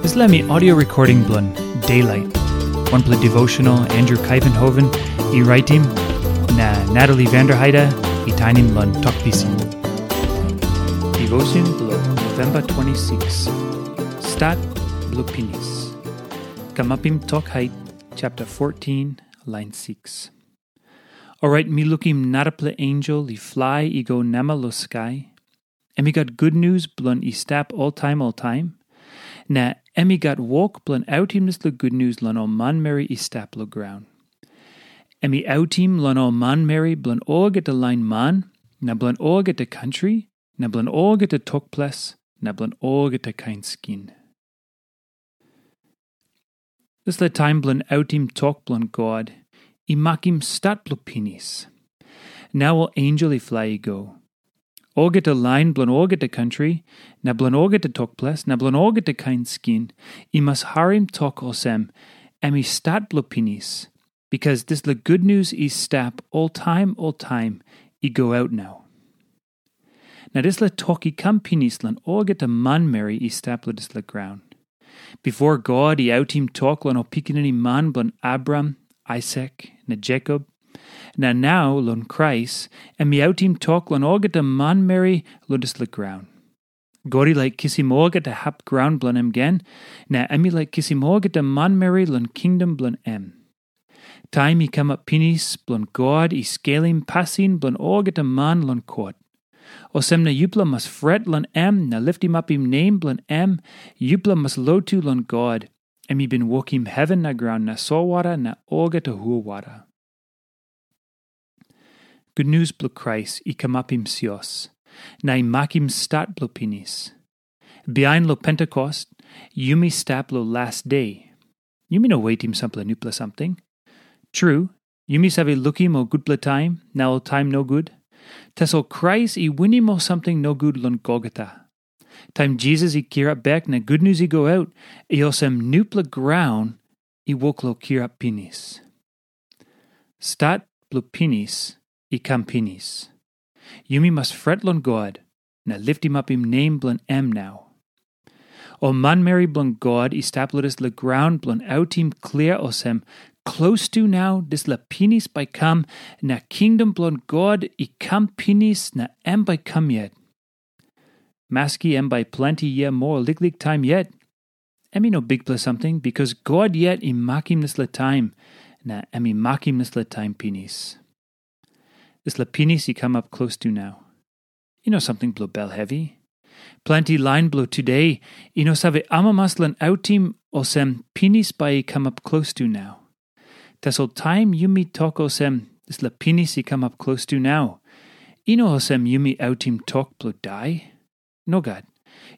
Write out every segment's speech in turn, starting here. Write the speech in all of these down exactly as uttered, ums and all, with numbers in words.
Dispela mi audio recording bilong Daylight, wanpela devotional Andrew Kaivenhoven i raitim, na Natalie Vanderheide i tainim long Tok Pisin. Devotion bilong November twenty-six. Stat bilong pinis. Kamapim tok hait, chapter fourteen, line six. Orait mi lukim narapela ensel i flai i go namel long skai. Em i gat gutnius bilong i stap oltaim oltaim, na em i gat wok bilong autim dispela gutnius long ol manmeri i stap long graun. Em i autim long ol manmeri bilong olgeta lain man, na bilong olgeta kantri, na bilong olgeta tok ples, na bilong olgeta kain skin. Dispela taim bilong autim tok bilong God i makim stat bilong pinis. Nau ol ensel i flai i go. Olgeta lain bilong olgeta kantri, na bilong olgeta tok ples, na bilong olgeta kain skin, i mas harim tok olsem, em i stat bilong pinis, bikas dispela gutnius i stap oltaim oltaim i go aut nau. Na dispela tok i kam pinis long olgeta manmeri i stap long dispela graun. Bipo God i autim tok long ol pikinini man bilong Abraham, Aisak, na Jekop, na nau long Krais, em i autim tok long olgeta manmeri long dispela graun. God i laik kisim olgeta hap graun bilong em gen, na em i laik kisim olgeta manmeri long kingdom bilong em. Taim i kamap pinis bilong God i skelim pasin bilong olgeta man long kot. Olsem na yupela mas fret long em na litimapim nem bilong em, yupela mas lotu long God, em i bin wokim heven na graun na solwara na olgeta hulwara. Gutnius bilong Krais i kamapim sios, na i makim stat bilong pinis. Bihain long Pentekost, yumi stap long las de. Yumi no wetim sampela nupela samting. Tru, yumi save lukim ol gutpela taim na ol taim nogut. Tasol Krais i winim ol samting nogut long Golgota. Taim Jisas i kirap bek na gutnius i go aut, i olsem nupela graun i wok long kirap pinis. Stat bilong pinis i kam pinis. Yumi mas fret long God na litimapim nem bilong em nau. Ol manmeri bilong God i stap long dispela graun bilong autim klia olsem, klostu nau dispela pinis bai kam, na kingdom bilong God i kam pinis na em bai kam yet. Maski em bai planti yia moa liklik taim yet, em i no bikpela samting, bikas God yet i makim dispela taim, na em i makim dispela taim pinis. Dispela pinis i kamap klostu nau. I no samting bilong bel hevi. Planti lain bilong tude i no save amamas long autim olsem pinis bai i kamap klostu nau. Tasol taim yumi tok olsem, dispela pinis i kamap klostu nau, i no olsem yumi autim tok bilong dai. Nogat.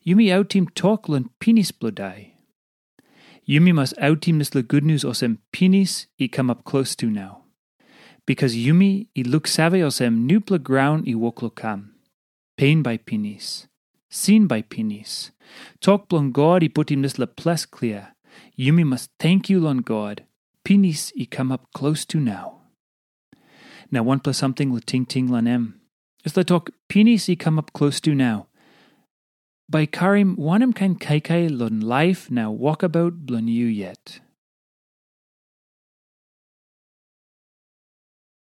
Yumi autim tok long pinis bilong dai. Yumi mas autim dispela gutnius olsem pinis i kamap klostu nau. Bikas yumi i luksave olsem nupela graun i wok long kam. Pen bai pinis. Sin bai pinis. Tok bilong God i putim dispela ples klia. Yumi mas tenkyu long God. Pinis i kamap klostu nau. Na wanpela samting long tingting long em. Dispela tok pinis i kamap klostu nau, bai karim wanem kain kaikai long laip na wokabaut bilong yu yet?